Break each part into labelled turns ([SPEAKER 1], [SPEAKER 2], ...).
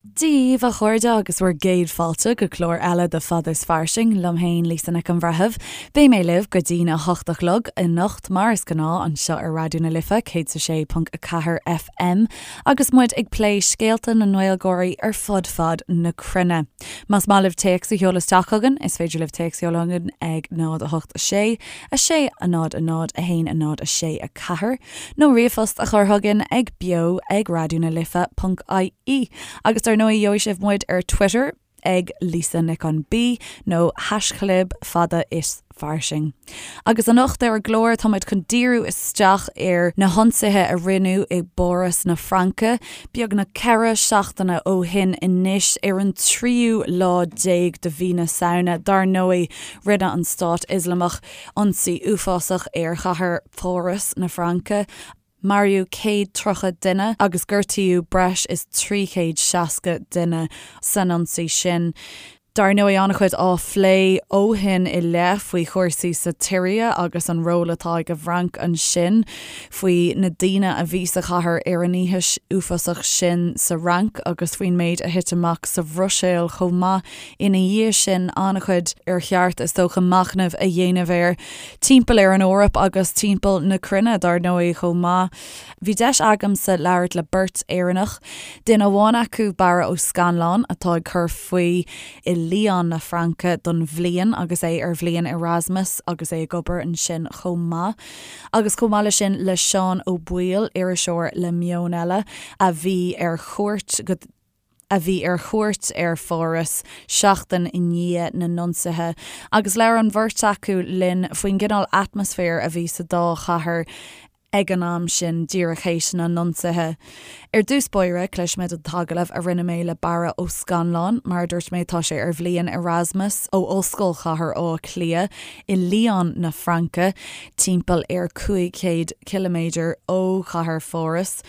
[SPEAKER 1] Dia dhaoibh a chairde agus bhur gcéad fáilte go clár eile de Fada is Fairsing, liom féin Lisa Nic an Bhreithimh. Beidh mé libh go dtína 8 a chlog anocht mar is gnáth anseo ar Raidió na Life 106.4 FM agus muid ag plé scéalta na nGaeilgeoirí ar fud fad na cruinne. Más maith libh téacs a sheoladh isteach chugainn, is féidir libh téacs a sheoladh chugainn ag 0 8 6 6 0 0 1 0 6 4. nó ríomhphost a chur chugainn ag beo ag raidionalife ponc ie. Agus dar ndóigh gheobhaidh sibh muid ar Twitter ag Lisa Nic an B nó haischlib fada is fairsing. Agus anocht ar an gclár tá muid chun díriú isteach ar na hionsaithe a rinneadh i bPáras na Fraince beagnach 4 seachtaine ó shin anois ar an tríú lá déag de mhí na Samhna. Dar ndóigh rinne an Stát Ioslamach ionsaí uafásach ar chathair Pháras na Fraince, maraíodh 130 duine agus gortaíodh breis is 360 duine san ionsaí sin. Dar ndóigh, an-chuid á phlé ó shin i leith faoi chúrsaí sa tSiria agus an ról atá ag an bhFrainc ansin, faoi na daoine a bhí sa chathair ar an oíche uafásach sin sa Fhrainc agus faoin méid a thit amach sa Bhruiséil chomh maith ina dhiaidh sin. An-chuid ar cheart, is dócha, machnamh a dhéanamh air. Timpeall ar an Eoraip agus timpeall na cruinne, dar ndóigh, chomh maith. Bhí deis agamsa labhairt le beirt Éireannach, duine amháin acu, Barra Ó Scannláin, atá ag cur faoi i Lyon na Fraince don bhliain agus é ar bhliain Erasmus agus é ag obair ansin chomh maith. Agus chomh maith leis sin le Seán Ó Baoill, iriseoir le Meon Eile, a bhí ar chuairt go. a bhí ar chuairt ar Pháras seachtain i ndiaidh na n-ionsaithe, agus labhair an bheirt acu linn faoin gcineál atmaisféir a bhí sa dá chathair ag an am sin, díreach théis na n-ionsaithe. Ar dtús báire, cloisfimid an t-agallamh a rinne mé le Barra Ó Scannláin. Mar a dúirt mé, tá sé ar bhliain Erasmus ó Ollscoil Chathair Átha Cliath i Lyon na Fraince, timpeall ar 500 ciliméadar ó chathair Pháras.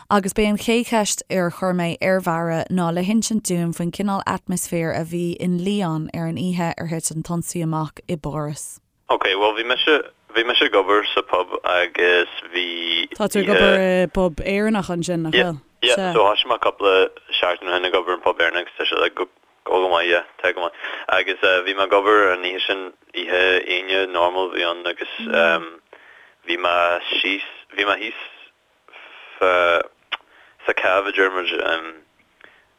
[SPEAKER 1] Agus b'é an chéad cheist ar chuir mé ar Bharra ná le hinsint dúinn faoin cineál atmaisféir a bhí in Lyon ar an oíche ar thit an t-ionsaí amach i bPáras.
[SPEAKER 2] Ok, bhuel bhí mise, bhí mise ag obair sa pub agus bhí
[SPEAKER 1] Tá tú ag obair i bpub Éireannach ansin, nach
[SPEAKER 2] bhfuil? Yeah, yeah, so thoisigh mé cúpla seachtain ó shin ag obair in pub Éireannach agus tá sé like go, go maith, yeah, tá go maith. Agus bhí mé ag obair an oíche sin, oíche Aoine normal a bhí ann agus bhí mé síos, bhí mé thíos sa cave a deir muid,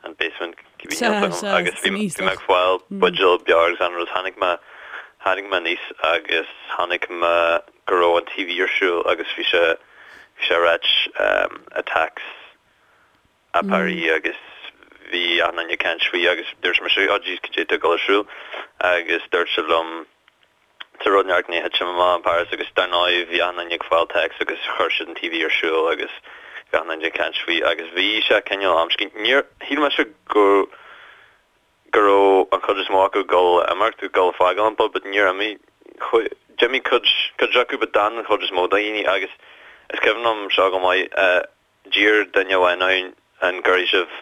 [SPEAKER 2] an basement, cibé níl 's agam, agus bhí mé ag fáil buidéal beoir agus an rud, tháinig mé, tháinig mé aníos agus chonaic mé go raibh an TV ar siúl agus bhí sé, bhí sé ag ráit attacks à Paris agus bhí achan duine ag caint faoi agus dúirt mise oh jeez cad é atá ag dul ar siúl agus dúirt siad liom Tá rud inteacht i ndiaidh titim amach in Paris agus dar ndóigh bhí achan duine ag fáil text agus chuir siad an TV ar siúl agus bhí achan duine ag caint faoi agus bhí sé cineál amscaí. Níor shíl mise go go raibh an chuid is mó acu ag dul a imeacht, ag dul a fágáil an pub but níor imigh. D'imigh cuid cuid acu but d'fhan an chuid is mó de dhaoine agus is cuimhin liom seo go maith d'iarr duine amháin ann an gcuirfidh sibh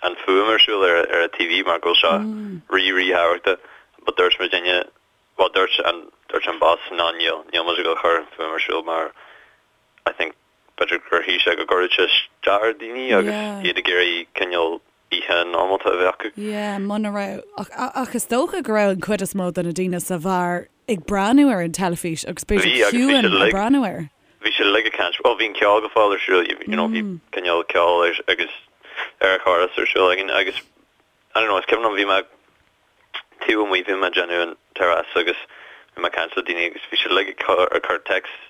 [SPEAKER 2] an fuaim ar siúl ar ar an TV mar go bhfuil seo rí rí thábhachtach but dúirt muidinne Bhuel dúirt an, dúirt an boss ná níl, níl muid ag dul a chur an fuaim ar siúl mar I think b'fhéidir gur shíl sé go gcuirfeadh sé isteach ar daoine agus
[SPEAKER 1] Yeah.
[SPEAKER 2] iad ag iarraidh cineál oíche normálta a bheith acu.
[SPEAKER 1] Yeah, muna raibh, ach, ach is dócha go raibh an chuid is mó de na daoine sa bheár ag breathnú ar an teilifís agus
[SPEAKER 2] Bhí,
[SPEAKER 1] b'fhéidir
[SPEAKER 2] agus bhí
[SPEAKER 1] ciúin
[SPEAKER 2] siad
[SPEAKER 1] ag
[SPEAKER 2] uilig,
[SPEAKER 1] breathnú air.
[SPEAKER 2] bhí siad uilig ag caint, bhuel bhí an ceol go fóill ar siúl, you know bhí cineál ceol ar, agus ar an chóras ar siúl againn agus I don't know, is cuimhin liom bhí mé taobh amuigh, bhí mé ag déanamh an terrace agus bhí mé ag caint le daoine agus bhí siad uilig ag cur ag cur texts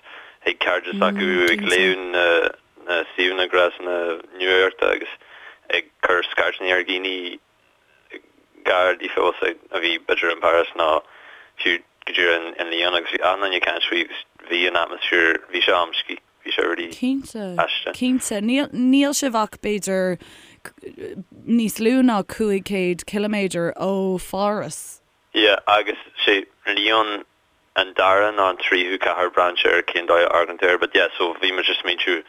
[SPEAKER 2] chuig cairde s'acu, ag léamh na na suíomhanna gréasáin nuachta agus ag cur scairteanna ar dhaoine gar daofa a bhí b'fhéidir in Paris nó fiú go díreach in Lyon agus bhí achan duine ag caint faoi agus bhí an atmaisféar, bhí sé amscaí. Bhí sé really
[SPEAKER 1] Cinnte,
[SPEAKER 2] aisteach.
[SPEAKER 1] cinnte. Níl, níl sibh ach b'fhéidir níos lú ná 500 ciliméadar ó Pháras.
[SPEAKER 2] Yeah, agus sé Lyon an dara nó an tríú cathair braitheann sé ar cén dóigh a amharcann tú air, but yeah, so bhí muid ag smaointiú,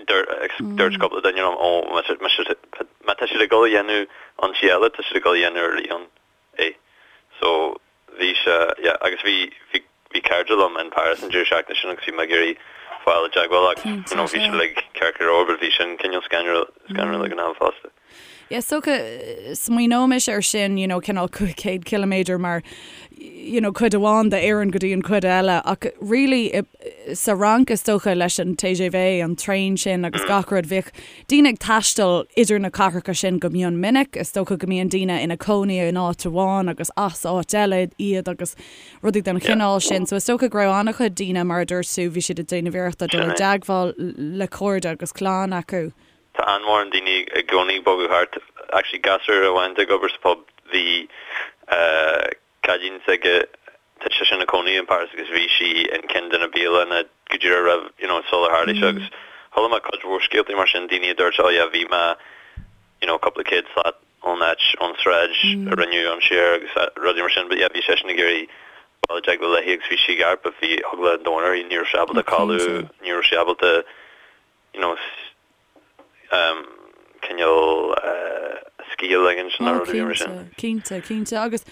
[SPEAKER 2] dúirt cúpla duine liom, ó, má tá siad ag dul a dhéanamh ionsaí eile, tá siad ag dul a dhéanamh ar Lyon. é. So, bhí sé, yeah, agus bhí, bhí, bhí cairde liom in Paris an deireadh seachtaine sin agus bhí mé ag iarraidh fáil i dteagmháil agus, you know, bhí siad uilig ceart go leor but bhí sin cineál scanrúil, scanrúil ag an am fosta.
[SPEAKER 1] Yeah, is dócha, smaoineoimis air sin, you know, cineál 500 ciliméadar mar, you know, cuid amháin d'Éirinn go dtí an cuid eile, ach really i, sa Fhrainc is dócha leis an TGV, an traein sin agus gach rud, bhíodh daoine ag taisteal idir na cathracha sin go mion minic, is dócha go mbíonn daoine ina cónaí in áit amháin agus as áit eile iad agus rudaí den chineál sin. So is dócha go raibh an-chuid daoine, mar a dúirt tú, bhí siad ag déanamh iarrachta dul i dteagmháil le cairde agus clann acu.
[SPEAKER 2] Tá an-mhórán daoine i gcónaí ag bogadh thart. Actually gasúr amháin atá ag obair sa pub, bhí cailín s'aige, tá sise ina cónaí in Paris agus bhí sí in ceann de na bialanna go díreach roimh, you know, sular tharla sé agus chuala mé cuid mhór scéaltaí mar sin, daoine a dúirt oh yeah bhí mé, you know, cúpla céad slat ón áit, ón sráid a rinneadh ionsaí air agus rudaí mar sin but yeah bhí seisean ag iarraidh dul i dteagmháil léi agus bhí sí i gceart but bhí eagla an domhain uirthi, ní raibh sí ábalta codladh, ní raibh sí ábalta you know, cineál scíth a ligint nó rudaí mar sin.
[SPEAKER 1] Cinnte, cinnte. Agus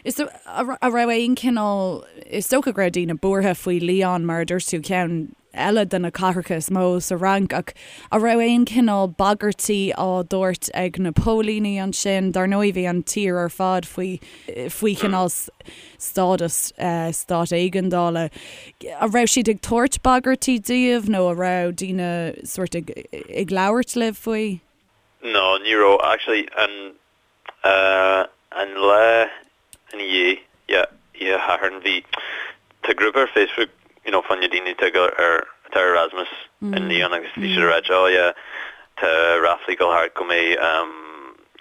[SPEAKER 1] is a raibh aon cineál, is dócha go raibh daoine buartha faoi Lyon mar a dúirt tú, ceann eile de na cathracha is mó sa Fhrainc, ach a raibh aon cineál bagairtí á dtabhairt ag na póilíní ansin? Dar ndóigh bhí an tír ar fad faoi faoi chineál stádas stát éigeandála. An raibh siad ag tabhairt bagairtí daoibh nó an raibh daoine sórt ag ag labhairt libh faoi?
[SPEAKER 2] No, ní raibh. Actually, an an lá ina dhiaidh, yeah, oíche Shathairn, bhí, tá grúpa ar Facebook, you know, fá choinne daoine atá ag ar, atá ar Erasmus in Lyon agus bhí siad ag ráit, oh yeah, tá ráflaí ag dul thart go mbeidh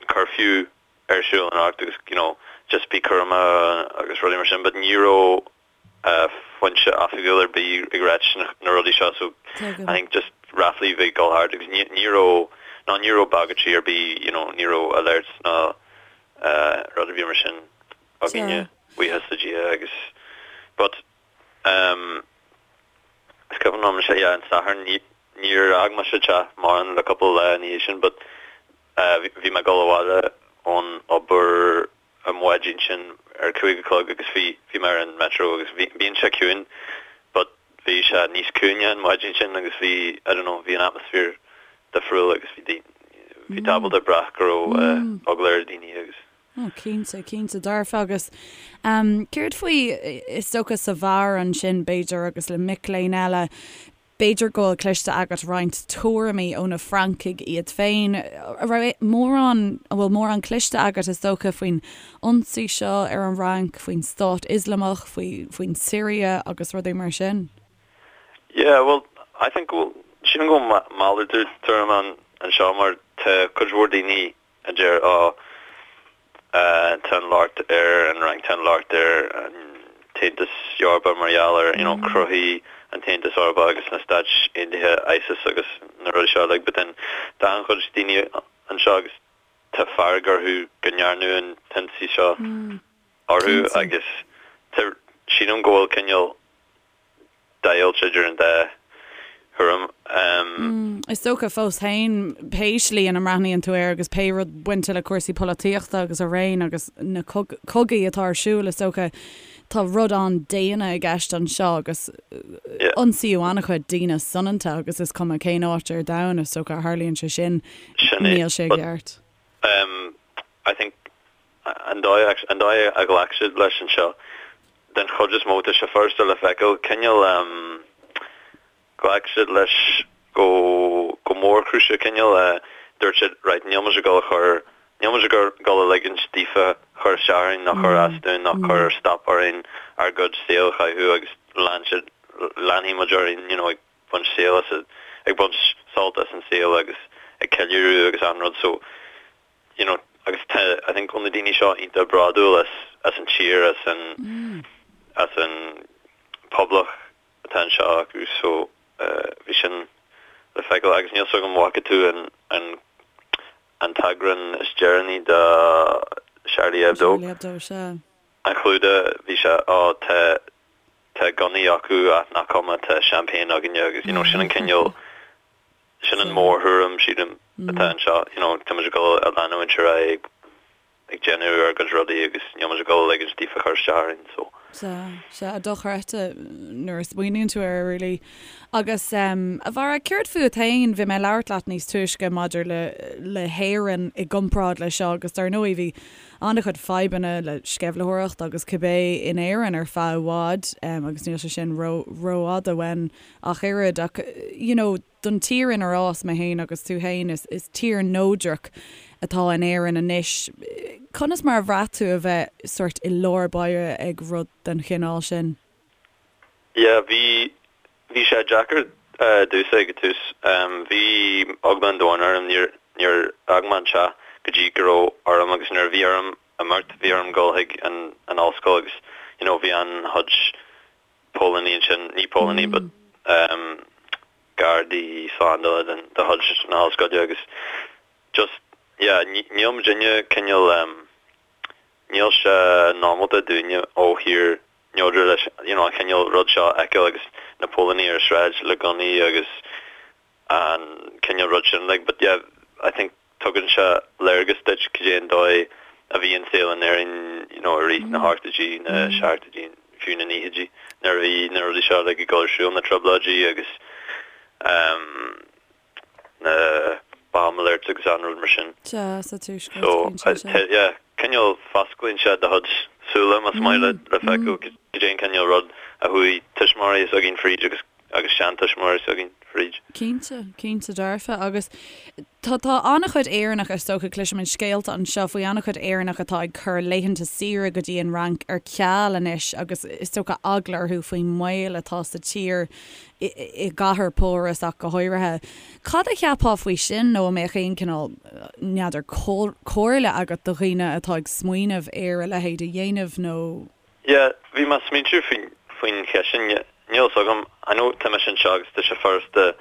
[SPEAKER 2] curfew ar siúl anocht agus you know just bí cúramach agus rudaí mar sin but ní raibh foinse oifigiúil ar bith ag ráit na rudaí seo so I think just ráflaí a bhí ag dul thart agus ní ní raibh ná ní raibh bagairtí ar bith you know ní raibh alerts ná rud ar bith mar sin againne buíochas le Dia agus but um is cuimhin liom sé yeah an Satharn ní níor fhág mise teach mórán le cúpla lá ina dhiaidh sin but Bhí mé ag dul abhaile ón obair an mhaidin sin ar 5 a chlog agus bhí, bhí mé ar an metro agus bhí, bíonn sé ciúin but bhí sé níos ciúine an mhaidin sin agus bhí, I don't know, bhí an atmosphere difriúil agus bhí daoine, bhí tú ábalta brath go raibh eagla ar daoine agus.
[SPEAKER 1] Oh, cinnte, cinnte dearfa agus céard faoi, is dócha sa bheár ansin b'fhéidir agus le mic léinn eile, B'fhéidir go bhfuil cloiste agat roinnt tuairimí ó na Francaigh iad féin. An raibh mórán, an bhfuil mórán cloiste agat, is dócha, faoin ionsaí seo ar an Fhrainc, faoin Stát Ioslamach, faoi, faoin Siria agus rudaí mar sin?
[SPEAKER 2] Yeah, well, I think go bhfuil, sílim go bhfuil malartú tuairim ann anseo mar tá cuid mhór daoine a deir, Ó, tá an locht ar an Fhrainc, tá an locht ar an tAontas Eorpach mar gheall ar, you know, chruthaigh an tAontas Eorpach agus na Stáit Aontaithe ISIS agus na rudaí seo uilig. But then tá an-chuid daoine anseo agus tá fearg orthu go ndearnadh an t-ionsaí seo orthu agus tá, sílim go bhfuil cineál deighilt idir an dá thuairim.
[SPEAKER 1] Is dócha fós féin, pé slí ina mbreathnaíonn tú air agus pé rud bainte le cúrsaí polaitíochta agus araon agus na cogaí atá ar siúl, is dócha, tá rud an-daonna i gceist anseo agus ionsaíodh an-chuid daoine soineanta agus is cuma cén áit ar domhan is dócha a tharlaíonn sé sin, níl sé i gceart.
[SPEAKER 2] I think an dóigh an dóigh a ghlac siad leis anseo den chuid is mó tá sé furasta le feiceáil cineál ghlac siad leis go go mórchúiseach cineál dúirt siad right níl muid ag dul a chur níl muid ag dul a ligint daofa cur isteach orainn ná cur as dúinn ná cur stop orainn ár gcuid saol a chaitheamh agus lean siad leanfaidh muid orainn you know ag baint saol as ag baint sult as an saol agus ag ceiliúradh agus an rud so you know agus tá I think go bhfuil na daoine seo iontach bródúil as as an tír as an as an poblacht atá anseo acu so bhí sin le feiceáil agus níl 's agam an bhfaca tú an an an t-eagrán is deireanaí de Charlie Hebdo.
[SPEAKER 1] Charlie Hebdo, sea.
[SPEAKER 2] An clúdach bhí sé ó tá tá gunnaí acu ach nach cuma tá champagne againne agus you know sin an cineál Sin an mórthuairim, sílim, atá anseo. You know, tá muid ag dul a leanúint ar aghaidh ag déanamh ár gcuid rudaí agus níl muid ag dul a ligint daofa cur isteach orainn, so.
[SPEAKER 1] Sea, sea, dochreidte nuair a smaoiníonn tú air, really. Agus, a Bharra, céard fút féin? Bhí mé ag labhairt leat níos túisce maidir le, le hÉirinn i gcomparáid le seo agus dar ndóigh bhí an-chuid fadhbanna le sceimhlitheoireacht agus cibé in Éirinn ar feadh i bhfad agus níl sé sin ró, rófhada uainn ach oiread ach, you know, don tír inar fhás mé féin agus tú féin, is tír neodrach atá in Éirinn anois. Conas mar a bhraith tú a bheith sórt i lár báire ag rud den chineál sin?
[SPEAKER 2] Yeah, bhí, bhí sé deacair domhsa ag an tús. Bhí eagla an domhain orm, níor, níor fhág mé an teach go dtí go raibh orm agus nuair a bhí orm imeacht, bhí orm dul chuig an, an ollscoil agus you know bhí an-chuid póilíní ansin, ní póilíní but gardaí slándála den de chuid na hollscoile agus just yeah níl muidinne cineál níl sé normálta dúinne ó thír neodrach leis you know an cineál rud seo a fheiceáil agus na póilíní ar an sráid le gunnaí agus an cineál rud sin like but yeah I think tugann sé léargas duit cad é an dóigh a bhí an saol in Éirinn you know i rith na hochtóidí, na seachtóidí, fiú na naochaidí nuair a bhí na rudaí seo like ag dul ar siúl, na trioblóidí agus um na bomb alerts agus an rud mar sin.
[SPEAKER 1] Sea, sa tuaisceart, So,
[SPEAKER 2] cinnte, sea. yeah, cineál fosclaíonn sé do chuid súile más maith leat le feiceáil cad é an cineál rud a chuaigh tuismitheoirí s'againn fríd agus agus seantuismitheoirí s'againn fríd.
[SPEAKER 1] Cinnte, cinnte dearfa. Agus tá, tá an-chuid Éireannach, is dócha, cloisimid scéalta anseo faoi an-chuid Éireannach atá ag cur laethanta saoire go dtí an Fhrainc ar ceal anois agus is dócha eagla orthu faoin mbaol atá sa tír, i, i gcathair Pháras ach go háirithe. Cad a cheapfá faoi sin nó an mbeadh aon cineál, n'fheadar, comhairle agat do dhaoine atá ag smaoineamh ar a leithéid a dhéanamh nó.
[SPEAKER 2] Yeah, bhí mé ag smaointiú faoin, faoin cheist sin. Níl fhios agam, I know tá mise anseo agus tá sé furasta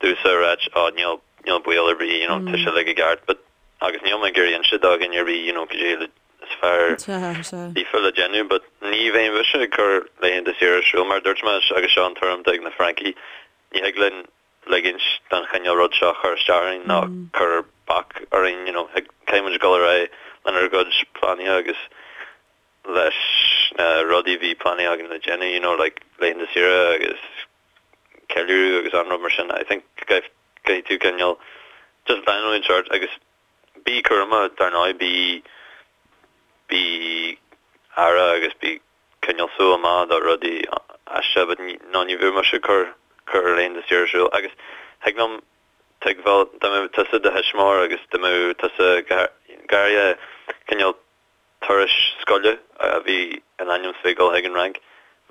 [SPEAKER 2] domhsa a ráit oh níl, níl baol ar bith, you know, tá sé uilig i gceart but, agus níl mé ag iarraidh inse do dhuine ar bith, you know, cad é le, is fearr daofa le déanamh but ní bheidh mise ag cur laethanta saoire ar siúl mar a dúirt mé agus seo an tuairim atá ag na Francaigh, ní thig linn ligint don chineál rud seo cur isteach orainn ná cur bac orainn, you know, caithfidh muid dul ar aghaidh lenár gcuid pleananna agus leis na rudaí a bhí pleanáilte againn le déanamh, you know, like laethanta saoire agus ceiliúradh agus an rud mar sin. I think go gcaithfidh tú cineál just leanúint ort agus bí cúramach dar ndóigh, bí bí aire agus bí coinneáil súil amach do rudaí aisteacha but no ní bheadh mise ag cur cur laethanta saoire ar siúl agus thig liom tuigbheáil dá mbeadh tusa i do thuismitheoir agus dá mbeadh tusa go háirithe cineál turais scoile a bhí in ainm is bheith ag dul chuig an Fhrainc.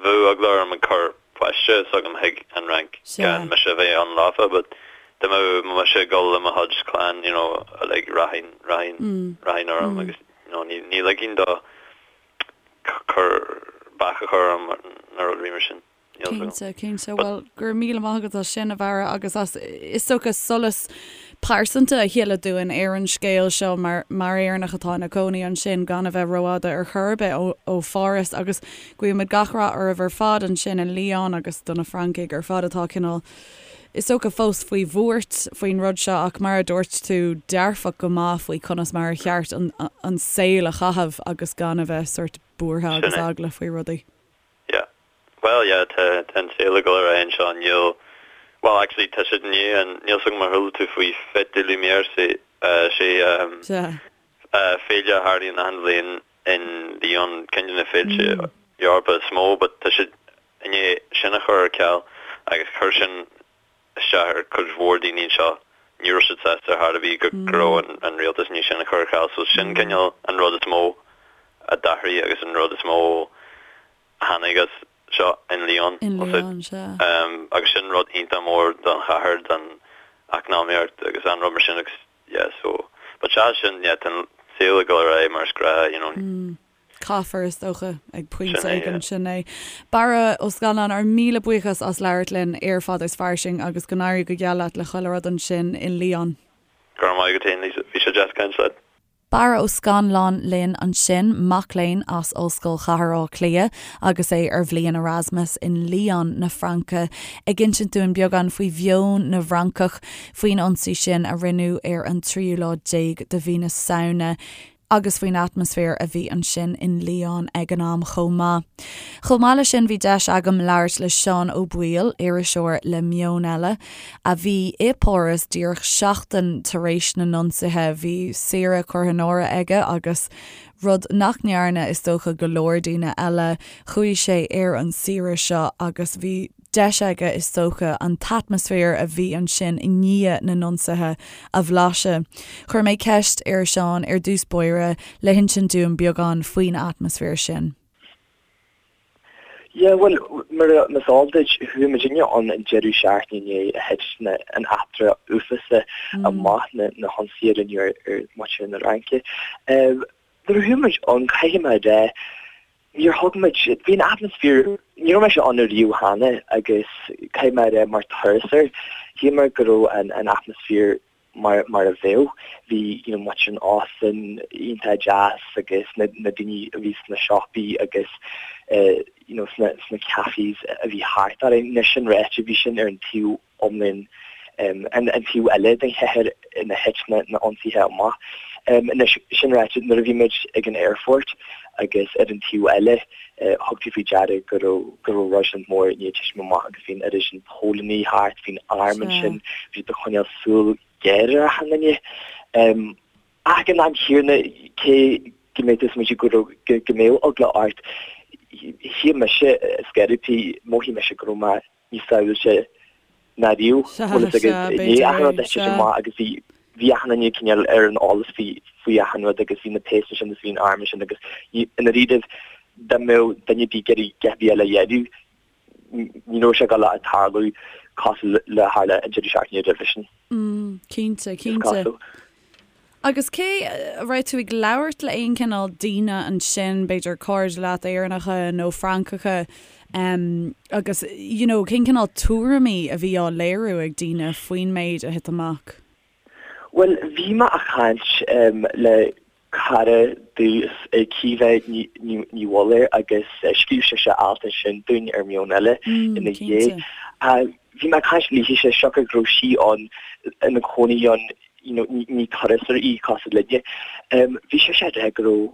[SPEAKER 2] Bheadh eagla orm ag cur páiste s'agam chuig an Fhrainc gan mise a bheith ann leofa but dá mbeadh mise ag dul le mo chuid clann you know like rachainn rachainn rachainn orm agus you know ní ní ligfinn do cur bac a chur orm nó rudaí mar sin.
[SPEAKER 1] Cinnte, cinnte. Bhuel, go raibh míle maith agat as sin, a Bharra, agus as, is dócha, solas pearsanta a shileadh dúinn ar an scéal seo mar, mar Éireannach atá ina cónaí ansin, gan a bheith rófhada ar chor ar bith ó, ó Pháras. Agus guímid gach rath oraibh ar fad ansin i Lyon agus do na Francaigh ar fad atá cineál, is dócha, fós faoi bhuairt faoin rud seo ach mar a dúirt tú, dearfach go maith faoi conas mar a cheart an, an saol a chaitheamh agus gan a bheith sórt buartha agus eagla faoi rudaí.
[SPEAKER 2] Yeah. Bhuel, yeah, tá, tá an saol ag dul ar aghaidh anseo, níl, bhuel, actually, tá siad i ndiaidh an, níl 's agam ar chuala tú faoi Fête des Lumières, sé, sé,
[SPEAKER 1] Sea.
[SPEAKER 2] féile a tharlaíonn achan bhliain in Lyon, ceann de na féilte Eorpa is mó, but tá siad i ndiaidh sin a chur ar ceal agus chuir sin isteach ar cuid mhór daoine anseo, ní raibh siad sásta ar chor ar bith go raibh an rialtas i ndiaidh sin a chur ar ceal. So sin cineál an rud is mó a d'athraigh agus an rud is mó a tháinig as seo in Lyon.
[SPEAKER 1] In Lyon, sea.
[SPEAKER 2] Agus sin rud iontach mór don chathair, don eacnamaíocht agus an rud mar sin agus yeah so but sea sin yeah tá an saol ag dul ar aghaidh mar is gnách you know.
[SPEAKER 1] Caithfear, is dócha, ag pointe éigin. Sin é. Barra Ó Scanláin, ár míle buíochas as labhairt linn ar Fada is Fairsing agus go n-éirí go geal leat le chuile rud ansin in Lyon.
[SPEAKER 2] Go raibh maith agat féin, Lisa. Bhí sé deas caint leat.
[SPEAKER 1] Barra Ó Scanláin linn ansin, mac léinn as Ollscoil Chathair Átha Cliath agus é ar bhliain Erasmus in Lyon na Fraince, ag insint dúinn beagán faoi mheon na bhFrancach faoin ionsaí sin a rinneadh ar an tríú lá déag de mhí na Samhna. agus faoin atmaisféar a bhí ansin in Lyon ag an am chomh maith. Chomh maith leis sin bhí deis agam labhairt le Seán Ó Baoill, iriseoir le Meon Eile, a bhí i bPáras díreach seachtain tar éis na n-ionsaithe. Bhí saoire curtha in áirithe aige agus, rud nach ndearna is dócha go leor daoine eile, chuaigh sé ar an saoire seo agus bhí deis aige is dócha an t-atmaisféar a bhí ansin i ndiaidh na n-ionsaithe a bhlaiseadh. Chuir mé ceist ar Seán ar dtús báire le hinsint dúinn beagán faoin atmaisféar sin.
[SPEAKER 3] Yeah, bhuel, mar is eol duit, chuaigh muidinne ann an deireadh seachtaine i ndiaidh a thit na, an eachtra uafásach amach, na, na hionsaithe a rinneadh ar, ar mhuintir na Fraince. Nuair a chuaigh muid ann, caithfidh mé a rá, níor thug muid, bhí an atmaisféar, ní raibh mise ann ariamh cheana agus caithfidh mé a rá mar turasóir, shíl mé go raibh an, an atmaisféar mar mar a bheadh. Bhí you know muintir an óstáin iontach deas agus na na daoine a bhí sna siopaí agus eh you know sna sna cafés a bhí thart orainn. Anois sin ráite bhí sin ar an taobh iomlán em an an taobh eile den chathair ina thit na na ionsaithe amach. Em anois sin ráite nuair a bhí muid ag an aerfort agus ar an taobh eile eh thug tú faoi deara go raibh go raibh roiseann mór i ndiaidh titim amach agus bhí an oiread sin póilíní thart, bhí an arm ansin, bhí siad ag coinneáil súil ghéar ar achan duine. Ach ag an am chéanna, cé go mbeadh tú ag smaointiú go raibh, go mbeadh eagla ort, shíl mise, scairití, mhothaigh mise go raibh mé níos sábháilte ná riamh. Bhfuil fhios agat, i ndiaidh achan rud a thit amach agus bhí, bhí achan duine cineál ar an eolas faoi, faoi achan rud agus bhí na péas ansin agus bhí an arm ansin agus i ndáiríribh dá mbeadh duine ar bith ag iarraidh a dhath ar bith eile a dhéanamh, ní raibh sé ag dul a tarlú cosúil le tharla an deireadh seachtaine roimhe sin.
[SPEAKER 1] Mm, cinnte, cinnte. Agus cé, raibh tú ag labhairt le aon chineál daoine ansin, b'fhéidir cairde leat Éireannacha nó Francacha, um, agus, you know, cén cineál tuairimí a bhí á léiriú ag daoine faoin méid a thit amach?
[SPEAKER 3] Bhuel, bhí mé a' caint um, le cara domh Caoimhe Ní Mhullaoir agus scríobh sise alt ansin dúinn ar Meon Eile ina dhiaidh. Bhí mé ag caint léithise siocair go raibh sí ann ina cónaí ann you know ní turasóir í cosúil linne. Bhí sise ag rá go raibh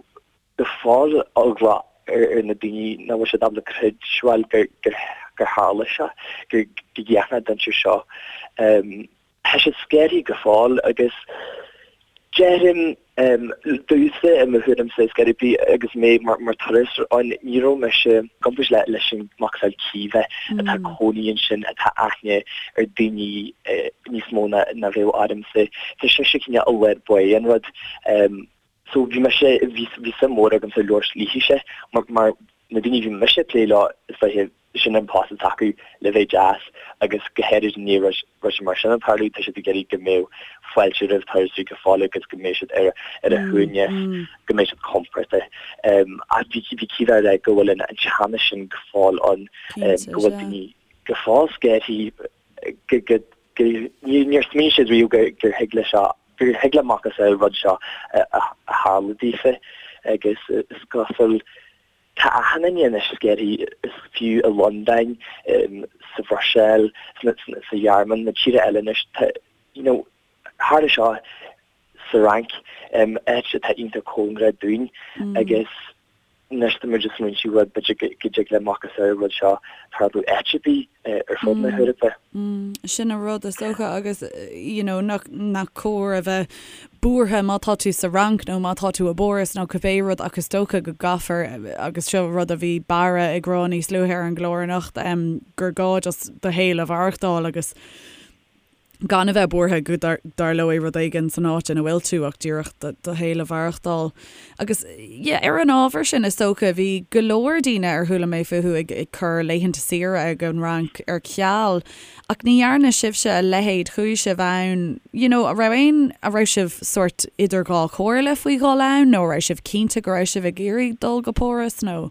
[SPEAKER 3] go fóill eagla ar na daoine nach bhfuil siad ábalta creidbheáil gur tharla seo, go gcéanna na dainséir seo. Tá siad scanraithe go fóill agus déarfainn domhsa i mo thuairimse is gurb í agus mé mar turasóir ann ní raibh mise i gcomparáid leis an macasamhail Caoimhe atá ag cónaí ansin atá aithne ar daoine níos mó ná bheadh ormsa. Tá sise cineál i lár báire an rud. So bhí mise, bhí bhí suim mhór agamsa labhairt léithise mar mar na daoine a bhí mise ag plé leo is dóiche sin an post atá acu le bheith deas agus go háirid i ndiaidh rud rud mar sin ag tarlú tá siad ag iarraidh go mbeadh fáilte roimh turasóirí go fóill agus go mbeidh siad ar ar a shuaimhneas, go mbeidh siad compordach. Ach bhí bhí Caoimhe ag rá go bhfuil an an teannas sin go fóill ann, go bhfuil daoine go fóill scanraithe go go go níor smaoinigh siad riamh gur gur thig le seo gur thig le macasamhail rud seo a tharlú daofa agus is cosúil tá achan duine anois scanraithe is fiú i Londain, sa Bhruiséil, sa Ghearmáin, na tíortha eile anois tá you know tharla seo sa Fhrainc, áit atá iontach cóngarach dúinn agus Anois tá muid ag smaointiú bhuel b'fhéidir go dtig le macasamhail an rud seo tarlú áit ar bith ar fud na hEorpa.
[SPEAKER 1] Sin an rud is dócha agus you know nach nach cóir a bheith buartha má tá tú sa Fhrainc nó má tá tú i bPáras nó cibé rud ach is dócha go gcaithfear agus seo rud a bhí Barra ag rá níos luaithe ar an gclár anocht gur gá just do shaol a mhaireachtáil agus gan a bheith buartha go dtarlóidh rud éigin san áit ina bhfuil tú ach díreach do shaol a mhaireachtáil. Agus yeah, ar an ábhar sin is dócha, bhí go leor daoine ar chuala mé fúthu ag ag cur laethanta saoire ag an Fhrainc ar ceal ach ní dhearna sibhse a leithéid, chuaigh sibh ann, you know, a raibh aon, a raibh sibh sórt idir dhá chomhairle faoi dhul ann nó a raibh sibh cinnte go raibh sibh ag iarraidh dul go Páras nó?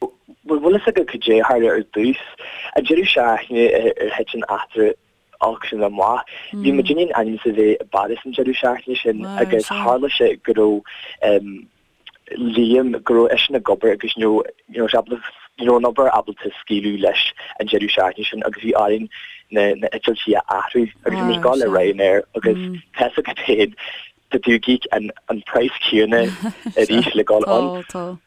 [SPEAKER 3] Bhuel, bhfuil fhios agat cad é a tharla ar dtús? An deireadh seachtaine ar thit an eachtra olc sin amach, bhí muidinne in ainm is a bheith i bPáras an deireadh seachtaine sin agus tharla sé go raibh Liam, go raibh eisean ag obair agus ní raibh sé ábalta, ní raibh an obair ábalta scaoileadh leis an deireadh seachtaine sin agus bhí orainn na heitiltí a athrú agus bhí muid ag dul le Ryanair agus tá fhios agat féin. Tá tú ag íoc an an praghas céanna arís le dul ann.
[SPEAKER 1] Tá, tá.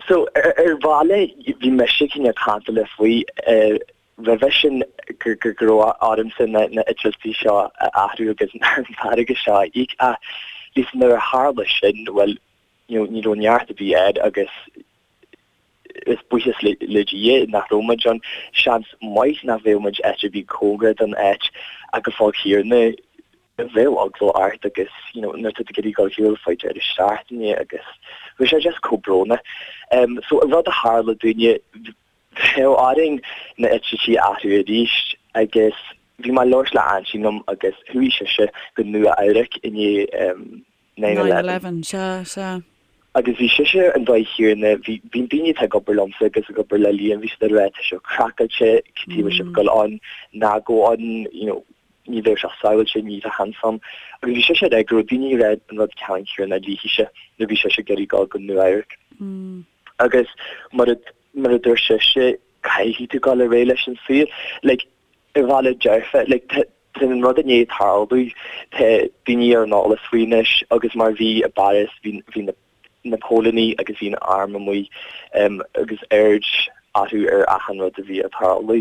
[SPEAKER 3] So ar bhealach bhí mise cineál cantalach faoi roimhe sin go go go raibh ormsa na na eitiltí seo a athrú agus an t-airgead seo a íoc ach Lisa nuair a tharla sin bhuel you know ní raibh neart ar bith air agus is buíochas le Dia nach raibh muid ann. Seans maith nach bheadh muid áit ar bith cóngarach don áit ach go fóill céanna bheadh eagla ort agus you know nuair atá tú ag iarraidh dul ar shiúl fá deireadh seachtaine agus bhí sé just chomh brónach. So an rud a tharla dúinne, bheadh orainn na eitiltí a athrú arís agus bhí mé ag labhairt le aintín liom agus chuaigh sise go Nua Eabhrac i ndiaidh
[SPEAKER 1] 9/11. Sea, sea.
[SPEAKER 3] Agus bhí sise ar an dóigh chéanna, bhí, bhí daoine atá ag obair liomsa agus ag obair le Liam, bhí siad ag rá tá sé craiceáilte, cad chuige a bhfuil sibh ag dul ann, ná gabh ann, you know, ní bheadh sé sábháilte, ní bheadh seans ann. Agus bhí sise ag rá go raibh daoine ag rá an rud ceannann céanna léithise nuair a bhí sise ag iarraidh dul go Nua Eabhrac. Agus mar a, mar a dúirt sise, caithfidh tú dul ar aghaidh leis an saol. Like, ar bhealach dearfa, like, tá, tá an rud i ndiaidh tarlú, tá daoine ar an eolas faoi anois agus mar bhí i bPáras, bhí, bhí na, na póilíní agus bhí an arm amuigh um, agus aird orthu ar achan rud a bhí ag tarlú.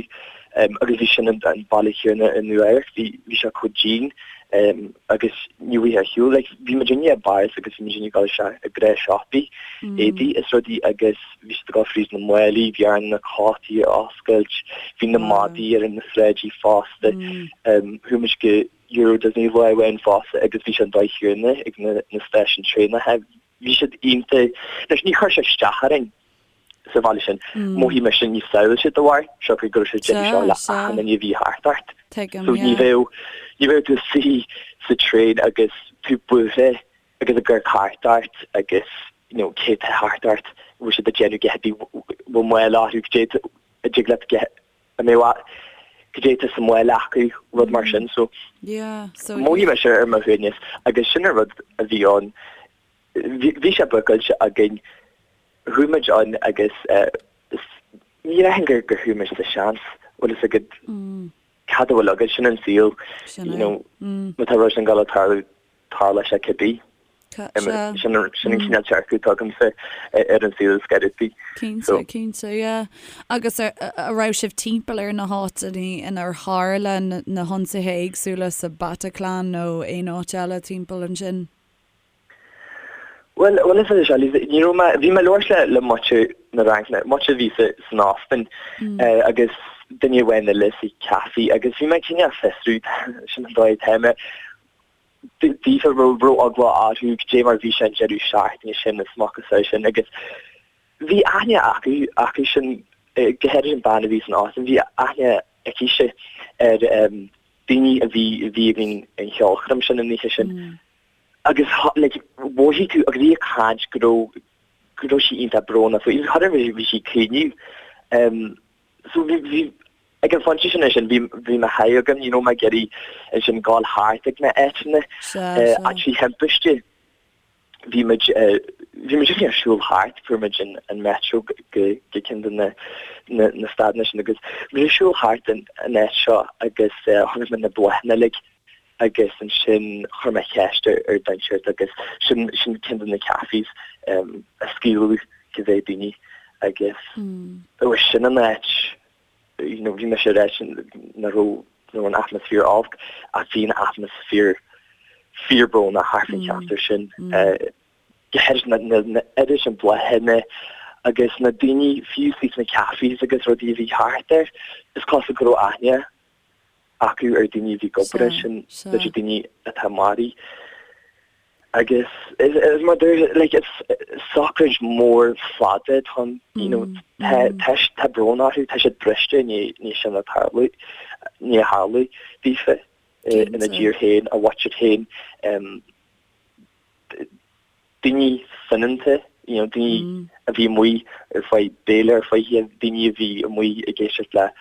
[SPEAKER 3] Um, agus bhí sin an, an bealach céanna i Nua Eabhrac, bhí, bhí sé chomh dian um, agus ní bhfuil ar shiúl, like, bhí muid i bPáras agus bhí muid ag dul isteach i ngnáthshiopaí, éadaí is rudaí agus bhí siad ag dul fríd na málaí, bhí orainn na cótaí a oscailt, bhí na madaí ar na sráidí fosta. Chuaigh muid go Euro Disney lá amháin fosta agus bhí sé an dóigh chéanna ag na stáisiúin traenacha. Bhí siad iontach, anois ní chuir sé isteach orainn sa bhaile sin, mhothaigh mise níos sábháilte de bharr siocair go raibh sé déanamh seo le achan duine a bhí thart ort. So ní bheadh, ní bheadh tú suí sa traein agus tú buartha agus ag amharc thart ort agus you know cé tá thart ort, bhfuil siad ag déanamh a dhath ar bith, bhfuil mála orthu, cad é a dtig leat a mbeadh cad é tá sa mhála acu, rud mar sin. So
[SPEAKER 1] yeah, so
[SPEAKER 3] mhothaigh mise ar mo shuaimhneas agus sin an rud a bhí ann. Bhí sé bookáilte againn, chuaigh muid ann agus eh, ní dhéarfainn gur gur chuaigh muid sa seans, bhfuil fhios agat cad a bhfuil agat, sin an saol, you know, má tá rud sin ag dul ag tarlú, tarlóidh sé cibé. Sin an cineál dearcadh atá agamsa ar an saol is gairid.
[SPEAKER 1] Cinnte, cinnte, yeah. Agus a raibh sibh timpeall ar na háiteanna inar tharla na hionsaithe éagsúla sa Bataclan nó aon áit eile timpeall ansin?
[SPEAKER 3] Bhuel, bhuel is é seo, ní raibh mé, bhí mé ag labhairt le le muintir na Fhraince, muintir a bhí sa san óstán agus duine amháin eile sa café agus bhí mé cineál fiosrú, sin an dóigh atá mé, daofa raibh raibh eagla orthu cad é mar bhí sé an deireadh seachtaine sin is macasamhail sin agus bhí aithne acu acu sin go háirid an bean a bhí san óstán bhí aithne aici ar daoine a bhí a bhí ag an cheolchoirm sin an oíche sin agus like mhothaigh tú agus í ag caint go raibh go raibh sí iontach brónach faoi agus bhí sí ag caoineadh So bhí, bhí, ag an phointe sin ansin, bhí, bhí mo sháith agam, ní raibh mé ag iarraidh ansin gabháil thart ag na áiteanna, áit faoi thimpiste. Bhí muid, bhí muid ag siúl thart, fuair muid an, an metro go, go ceann de na, na, na stadanna sin agus bhí muid ag siúl thart an, an áit seo agus chonaic muid na bláthanna uilig agus ansin chuir mé ceist ar ar duine inteacht agus sin sin ceann de na cafés a scaoileadh go bhféadh daoine agus ó sin an áit you know bhí mise ar áit nach raibh you an atmaisféar olc ach bhí an atmaisféar fíorbrónach thart faoin cheantar sin go háirid na na na oiread sin bláthanna agus na daoine fiú sna cafés agus rudaí a bhí thart air is cosúil go raibh aithne acu ar daoine a bhí ag obair ansin, b'fhéidir daoine atá maraithe. Agus is mar dúirt, like, is sochraid mór fada atá ann, you know, tá tá tá brón orthu, tá siad briste i ndiaidh sin a tarlú, i ndiaidh a tharlú daofa ina dtír féin, a mhuintir féin. daoine soineanta, you know, daoine a bhí amuigh ar feadh béile ar feadh oíche, daoine a bhí amuigh ag éisteacht le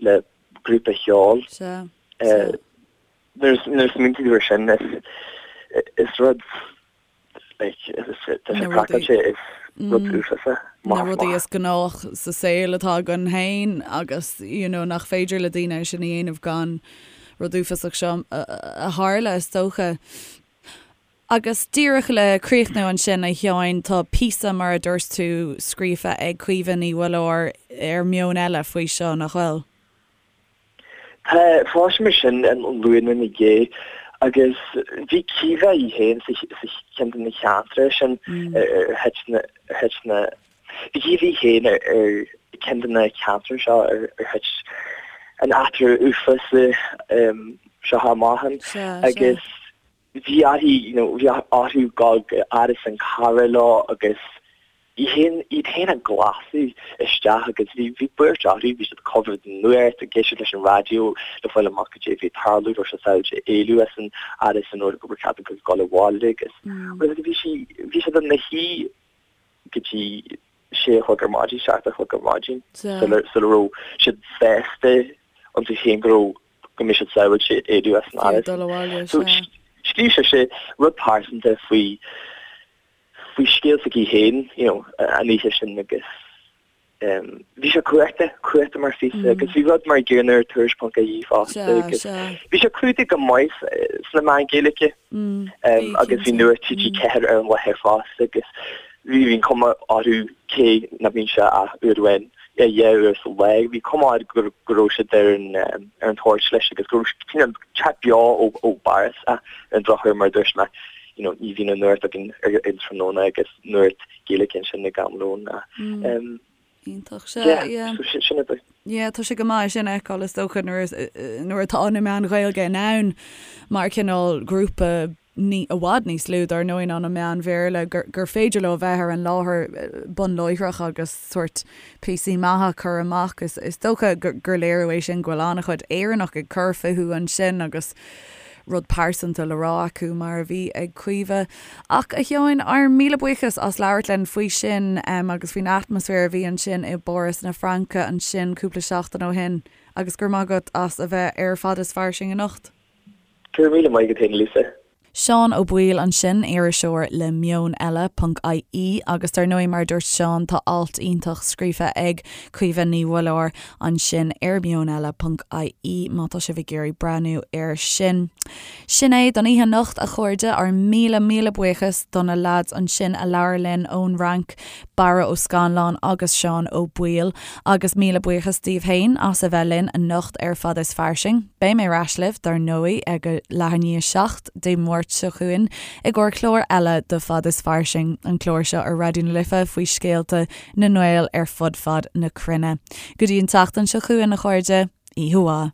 [SPEAKER 3] le grúpa cheoil.
[SPEAKER 1] Sea, sea.
[SPEAKER 3] Nuair a smaointíonn tú ar sin, is is rud like is tá sé craiceáilte, is rud uafásach,
[SPEAKER 1] Na rudaí is gnách sa saol atá againn féin agus you know nach féidir le daoine é sin a dhéanamh gan rud uafásach seo a tharla is dócha. Agus díreach le críochnú ansin, a Sheáin, tá píosa, mar a dúirt tú, scríofa ag Caoimhe Ní Mhuilleoir ar Meon Eile faoi seo, nach bhfuil?
[SPEAKER 3] Tá, fuair mé sin an Luan ina dhiaidh agus bhí Caoimhe í féin sa cheann de na ceantracha sin ar thit na, ar thit na, bhí Caoimhe í féin ar cheann de na ceantracha seo ar thit an eachtra uafásach seo amach ann agus bhí uirthi, you know, bhí orthu dul go árasán cara leo agus iad féin, iad féin a ghlásadh isteach agus bhí, bhí buairt orthu, bhí siad ag coimhéad an nuacht, ag éisteacht leis an raidió le fáil amach cad é a bhí ag tarlú, raibh siad sábháilte éalú as an árasán nó gur cheart dóibh dul abhaile agus, agus bhí sí, bhí siad ina shuí go dtí sé a chlog ar maidin, 7 a chlog ar maidin sula, sula raibh siad sásta iontu féin go raibh go mbeidh siad sábháilte éalú as an
[SPEAKER 1] áras.
[SPEAKER 3] So scríobh sise rud pearsanta faoi faoi scéal s'aici féin, you know, an oíche sin agus bhí sé cumhachtach, cumhachtach mar phíosa agus bhí rud mar an gcéanna ar Tuairisc.ie fosta agus bhí sé clúdaithe go maith sna meáin Ghaeilge agus bhí Nuacht TG4 ar an láthair fosta agus bhí an cuma orthu cé nach mbíonn sé ach uair amháin dhá uair sa lá, bhí cuma air go raibh siad ar an ar an toirt leis agus go raibh cineál teacht beo ó ó bPáras ach ar an drochuair mar a dúirt mé you know ní bhíonn an nuacht againn ar an tráthnóna agus nuacht Gaeilge ansin ag am lóin ach
[SPEAKER 1] Iontach, sea, yeah.
[SPEAKER 3] So sin é.
[SPEAKER 1] Yeah, tá sé go maith sin a fheiceáil is dócha nuair nuair atá na meáin Ghaeilge in ann mar cineál grúpa ní, i bhfad níos lú dar ndóigh ná na meáin Bhéarla, gur, gur féidir leo a bheith ar an láthair bun láithreach agus sórt píosaí maithe a chur amach. Is, is dócha gur, gur léiriú é sin go bhfuil an-chuid Éireannach ag cur fúthu ansin agus rud pearsanta le rá acu mar a bhí ag Caoimhe. Ach, a Sheáin, ár míle buíochas as labhairt linn faoi sin agus faoin atmaisféar a bhí ansin i bPáras na Fraince ansin cúpla seachtain ó shin agus go raibh maith agat as a bheith ar Fad is Fairsing anocht.
[SPEAKER 3] Go raibh míle maith agat féin, Lisa.
[SPEAKER 1] Seán Ó Baoill ansin, iriseoir le Meon Eile ponc IE agus dar ndóigh mar a dúirt Seán tá alt iontach scríofa ag Caoimhe Ní Mhuilleoir ansin ar Meon Eile ponc IE má tá sibh ag iarraidh breathnú air sin. Sin é don oíche anocht a chairde, ár míle míle buíochas do na leaids ansin a labhair linn ón Fhrainc, Barra Ó Scannláin agus Seán Ó Baoill agus míle buíochas daoibh féin as a bheith linn anocht ar Fad is Fairsing. Beidh mé ar ais libh, dar ndóigh, ag a leath i ndiaidh a 7 Dé Máirt seo chugainn i gcomhair clár eile de Fad is Fairsing, an clár seo ar Raidió na Life faoi scéalta na nGael ar fud fad na cruinne. Go dtí an tseachtain seo chugainn, a chairde, oíche mhaith.